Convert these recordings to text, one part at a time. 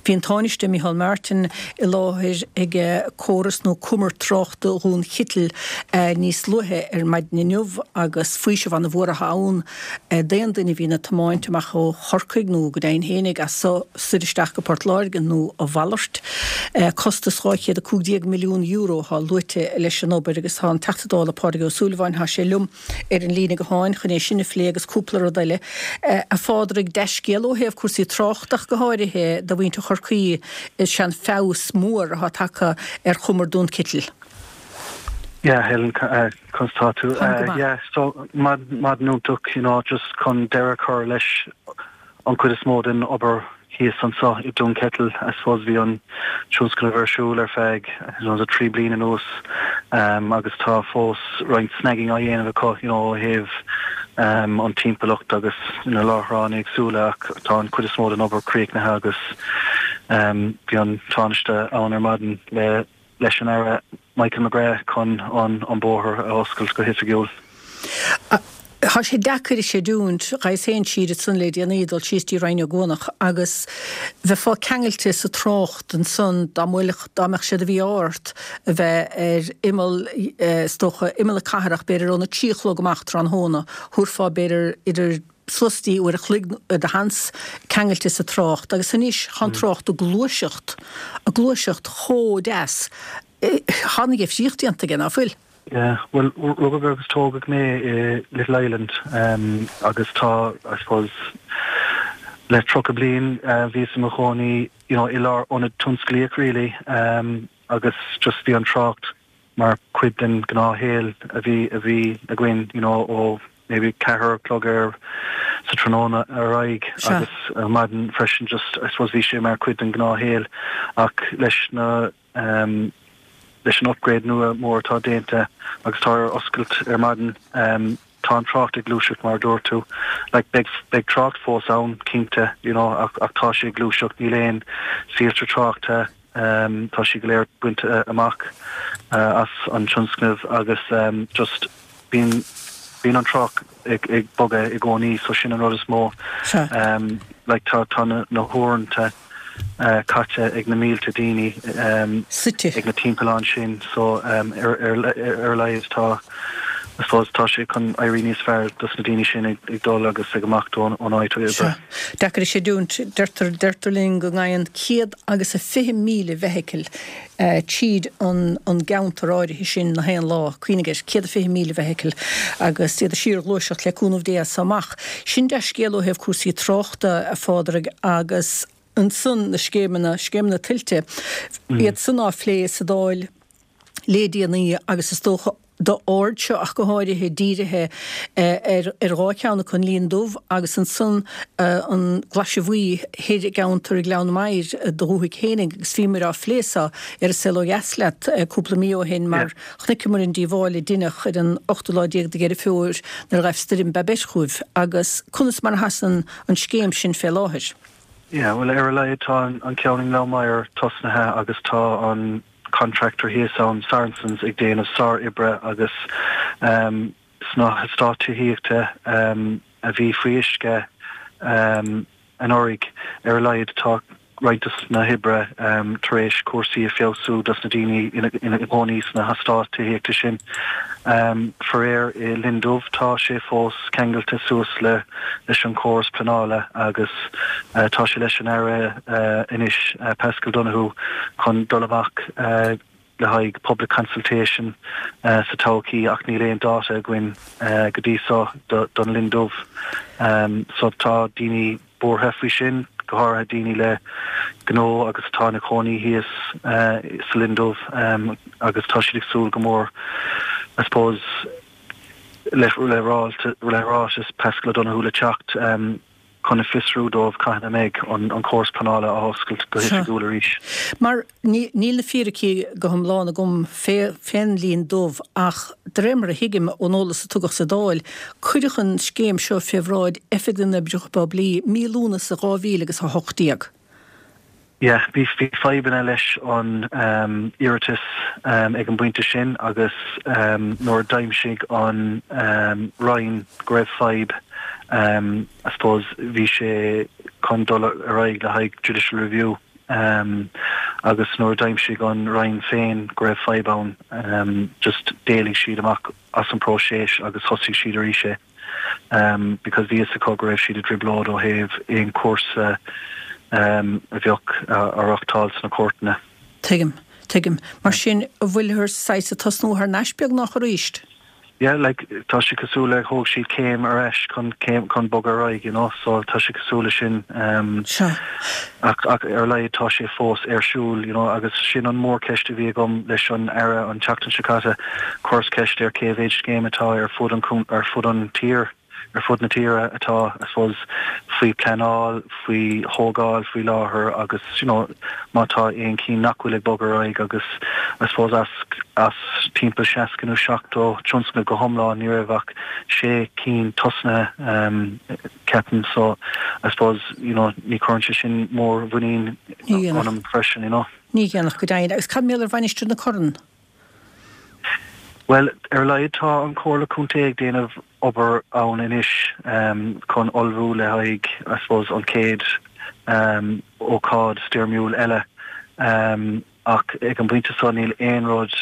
Bhí an Tánaiste Micheál Martin i láthair ag córas nó cumar tráchta Dhún Chitil níos luaithe ar maidin inniu agus faoiseamh ana-mhór atá ann d'aon duine a bhíonn ag tiomáint amach ó Chorcaigh nó go deimhin fhéinig as so soir isteach go Port Láirge nó a mhalairt. Costas €215 milliún atá luaite leis an obair agus tá an Teachta Dála Pádraig Ó Súilleabháin, tá sé liom ar an líne gutháin chun é sin a phlé agus cúpla rud eile. A Phádraig, dea-scéal ó thaobh cúrsaí tráchta ach go háirithe do mhuintir Chorcaí is ea an feabhas mór atá tagtha ar chumar Dún Citil. Yeah, Helen, conas tá tú? Táim go maith. Yeah, so maidin iontach, you know, just chun deireadh a chur leis an chuid is mó den obair thíos anseo i Dún Ceitil. I suppose bhí an tionscnamh ar siúl ar feadh, you know, 3 bliain anuas agus tá fós roinnt snagging á dhéanamh acu, you know, ó thaobh an timpeallacht agus na láithreáin éagsúla ach tá an chuid is mó den obair críochnaithe agus bhí an Tánaiste ann ar maidin le leis an Aire Michael McGrath chun an bóthar a oscailt go hoifigiúil. Tá sé deacair a chreidiúint, ghabhas féin siar ansan le déanaí, dul síos dtí Rinn Ó gCuanach agus bheifeá ceangailte sa trácht ansan dá mbuailfeadh, dá mbeadh sé de mhí-ádh ort a bheith ar imeall, is dócha, imeall na cathrach, b'fhéidir óna trí a chlog amach tráthnóna, thabharfá b'fhéidir idir suas dtí uair a chloig de sheans ceangailte sa trácht agus anois tá an trácht ag gluaiseacht, ag gluaiseacht chomh deas. Tá an difríocht déanta aige, ná fuil? Yeah, bhuel, rugadh agus tógadh mé i Little Island agus tá, I suppose, le 30 bliain bhíos i mo chónaí, you know, i lár ionad tionsclaíoch really agus just bhí an trácht mar chuid den ghnáthshaol a bhí a bhí againn you know ó maybe ceathair a chlog ar sa tráthnóna ar aghaidh agus ar maidin freisin just I suppose bhí sé mar chuid den ghnáthshaol ach leis na um, leis an upgrade nua mór atá déanta agus tá ar oscailt ar maidin um, tá an trácht ag gluaiseacht mar a dúirt tú like beidh beidh trácht fós ann cinnte you know ach ach tá sé ag gluaiseacht níl aon soilse tráchta Tá siad go léir bainte amach as an tionscnamh agus just bíonn bíonn an trácht ag ag bogadh i gcónaí so sin an rud is mó. Like tá tá na na huaireanta caite ag na mílte daoine Suite. ag na timpealláin sin so ar ar ar a laghad tá I suppose tá sé chun éirí níos fearr dos na daoine sin ag ag dul agus ag imeacht ón ón áit oibre. Sea. Deacair a chreidiúint, deirtear, deirtear linn go ngabhann 120,000 feithicil tríd an an gceantar áirithe sin na haon lá. Cuimhnigh air, 120,000 feithicil agus iad ag síorghluaiseacht le cúnamh Dé as so amach. Sin dea-scéal ó thaobh cúrsaí tráchta, a Phádraig, agus ansan na scéimeanna, scéimeanna tuilte, iad san á phlé sa Dáil le déanaí agus is dócha d'aird seo ach go háirithe dírithe ar dhá cheann acu, an Linn Dubh agus ansan an Glaise Bhuí thoir i gceantar Ghleann Maghair i do dhúthaigh fhéinig agus bhíomar á phlé so ar An Saol Ó Dheas leat cúpla mí ó shin mar chonaiceamar an díobháil a deineadh ar an ochtú lá déag de Dheireadh Fómhair nuair a ghaibh stoirm Babet chugaibh agus conas mar a sheasann an scéim sin fé láthair? Yeah, bhuel ar a laghad tá an ceann i nGleann Maghair tosnaithe agus tá an contractor thíos ann, Saracens, ag déanamh sár-oibre agus sna heastáit tithíochta a bhí faoi uisce anuraidh, ar a laghad tá roinnt dos na hoibre tar éis cúrsaí a feabhsú dos na daoine ina gcónaí sna heastáit tithíochta sin. Faraor i Linn Dubh tá sé fós ceangailte suas le leis an chóras pleanála agus tá sé leis an Aire anois, Paschal Donohoe, chun dul amach le haghaidh public consultation sa todhchaí ach níl aon dáta againn go dtí so don Linn Dubh. So tá daoine buartha faoi sin, go háirithe daoine le gnó agus atá ina cónaí thíos sa Linn Dubh agus tá siad ag súil go mór I suppose le ráiteas Paschal Donohoe le teacht chun a fiosrú dóibh cathain a mbeidh an córas pleanála á oscailt go hoifigiúil arís. Mar níl na fíricí go hiomlán agam fén Linn Dubh ach de réir mar a thuigim ón eolas a tugadh sa Dáil, cuireadh an scéim seo fé bhráid Oifig na nOibreacha Poiblí mí Lúnasa 2000 agus 18. Yeah, bhí fadhbanna leis an iarratas ag an bpointe sin agus nuair a d'aimsigh an Roinn go raibh fadhb, I suppose, bhí sé chun dul ar aghaidh le haghaidh judicial review. Agus nuair a d'aimsigh an Roinn féin go raibh fadhb ann, just d'éalaigh siad amach as an próiseas agus thosaigh siad arís é. Because bhí fhios acu go raibh siad i dtrioblóid ó thaobh aon chúrsa a bheadh á reachtáil sna cúirteanna. Tuigim. Tuigim. Mar sin, an bhfuilthear saghas ag tosnú thar n-ais beagnach arís? Yeah, like, tá sé cosúil le thóg siad céim ar ais chun céim chun bogadh ar aghaidh, you know, so tá sé cosúil le sin um, Sea. ach, ach ar a laghad tá sé fós ar siúl, you know, agus sin an mhórcheist a bhí agam leis an Aire an tseachtain seo caite, chuireas ceist air cé mhéid scéim atá ar fud an, ar fud an tír. ar fud na tíre atá, I suppose, faoi pleanáil, faoi thógáil faoi láthair agus, you know, má tá aon chinn nach bhfuil ag bogadh ar aghaidh agus, I suppose, as, as timpeall 60 nó 70 tionscnamh go hiomlán ní raibh ach sé cinn tosnaithe, um, ceapaim, so, I suppose, you know, ní chuireann sé sin mór-mhuinín ionam freisin, you know. Ní dhéanfadh, go deimhin. Agus cad mar gheall ar Mhainistir na Corann? Bhuel, ar a laghad tá an Chomhairle Contae ag déanamh obair ann anois chun ullmhú le haghaidh, I suppose, an chéad ócáid stoirmiúil eile. Ach ag an bpointe seo níl aon rud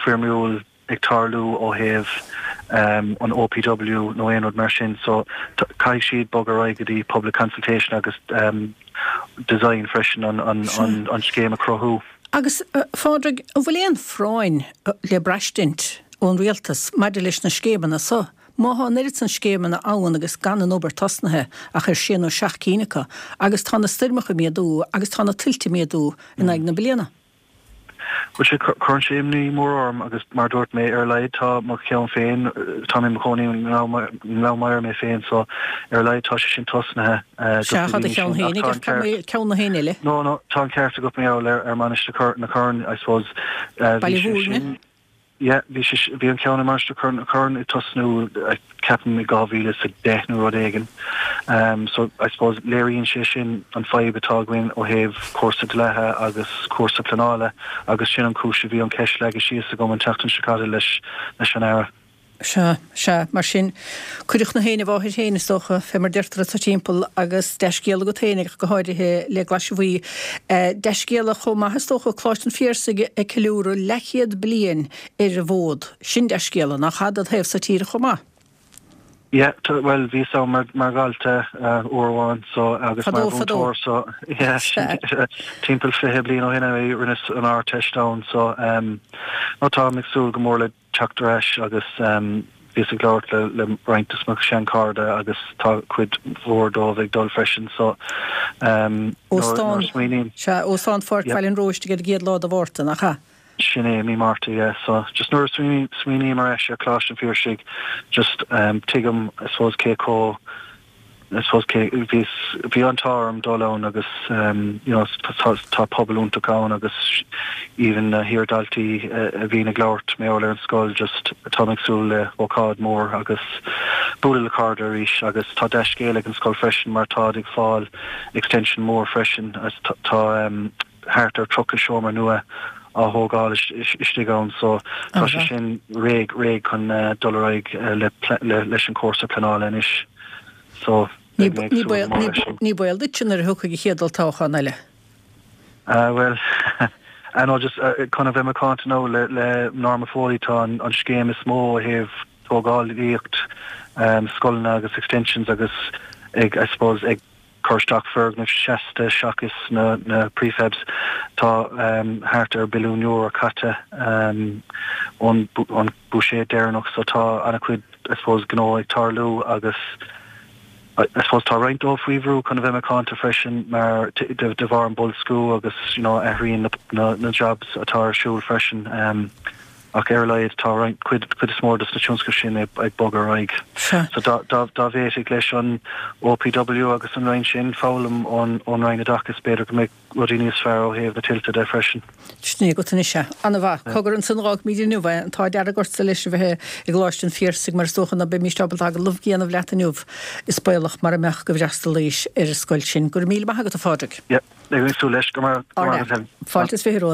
foirmiúil ag tarlú ó thaobh an OPW nó aon rud mar sin so caithfidh siad bogadh ar aghaidh go dtí public consultation agus design freisin an scéim a chruthú. Agus, a Phádraig, an bhfuil aon phráinn le braistint ón Rialtas maidir leis na scéimeanna so? Má thá an oiread san scéimeanna ann agus gan an obair tosnaithe ach ar sé nó seacht cinn acu, agus tá na stoirmeacha ag méadú agus tá na tuilte ag méadú in aghaidh na bliana. Bhuel, sea, cuireann sé imní mór orm agus mar a dúirt mé, ar a laghad tá mo cheann féin, tá mé i mo chónaí i nGleann Maghair mé féin so ar a laghad tá sé sin tosnaithe dos na Sea, tá do daoine cheann sin ach féin tá ach an ceart, ceann na héinne eile. No, no, tá an ceart agat mar gheall ar Mainistir na Corann, I suppose, bhí Baile sé Mhúirne. sin, Yeah, bhí sé, bhí an ceann i Mainistir na Corann ag tosnú, ceapaim, i 2010 nó rud éigin. So, I suppose, léiríonn sé sin an fadhb atá againn ó thaobh cúrsa dlíthe agus cúrsa pleanála agus sin an chúis a bhí an cheist leagtha síos agam an tseachtain seo caite leis leis an Aire. Sea, sea, mar sin, cuireadh na héin i bhfáthair féin, is dócha, fé mar deirtear anso timpeall, agus dea-scéala agat féin, ach go háirithe le Glaise Bhuí. Dea-scéala chomh maith, is dócha, Coláiste an Phiarsaigh ag ceiliúradh leathchéad bliain ar an bhfód. Sin dea-scéala, nach ea, dod thaobh sa tíre chomh maith? Yeah, bhuel, bhíos ann mar, mar dhalta uair amháin, so, agus mar Fadó, fadó. mhúinteoir, so, yeah, Sea. timpeall 20 bliain ó shin a rinneas an Ardteist ann, so, no, táim ag súil go mór le teacht ar ais agus bhíos ag labhairt le le roinnt de mo sheanchairde agus tá cuid mhór dóibh ag dul freisin so nuair Óstán, a smaoiním. sea, Óstán Pháirc Yeah. Bhaile an Róistigh ar an gcéad lá de Mhárta, nach ea? Sin é, mí Márta, yeah. So just nuair a smaoiním ar ais ar Choláiste an Phiarsaigh just tuigim I suppose cé chomh I suppose cé, bhí, bhí an t-ádh orm dul ann agus you know tá, tá pobal iontach ann agus even na hiar-dhaltaí a bhíonn ag labhairt mar gheall ar an scoil just táim ag súil le hócáid mór agus bualadh le cairde arís agus tá dea-scéal ag an scoil freisin mar táid ag fáil extension mór freisin agus tá thart ar 30 seomra nua á thógáil istigh ann so tá sé sin réidh, réidh chun dul ar aghaidh le, le, leis an cúrsa pleanála anois. So, Ní beidh mé ag súil go mór leis sin. Ní baol duitse nuair a thiocfaidh an chéad olltoghchán eile. Ah, bhuel, ah no, just chun a bheith macánta now le le Norma Foley tá an an scéim is mó ó thaobh tógálaíocht scoileanna agus extensions agus ag, I suppose, ag cur isteach foirgnimh seasta seachas na na prefabs. Tá thart ar billiún euro caite ón ón buiséad deireanach so tá an-chuid I suppose gnó ag tarlú agus I suppose tá roinnt dóibh faoi bhrú chun a bheith macánta freisin mar de bharr an boilsciú agus you know athraíonn na na jobs atá ar siúl freisin ach ar a laghad tá roinnt cuid cuid is mór dos na tionscnaimh sin ag ag bogadh ar aghaidh. Sea. So dá dá dá bhféadfadh leis an OPW agus an Roinn sin foghlaim ón ón Roinn Oideachais b'fhéidir go mbeadh rudaí níos fearr ó thaobh na tuilte de freisin. Sin é agat anois é. Ana-mhaith. Cogar ansan dh'fhágfaimid inniu é. An t-ádh dearg ortsa leis a bheith i gColáiste an Phiarsaigh mar is dócha ná beimíst ábalta agallamh a dhéanamh leat inniu. Is baolach mara mbeadh go bhfreastalaís ar an scoil sin. Go raibh míle maith agat a Phádraig. Yep. Beidh mé ag súil leis. Go raibh maith agat Helen. Fáilte is 20 romhat.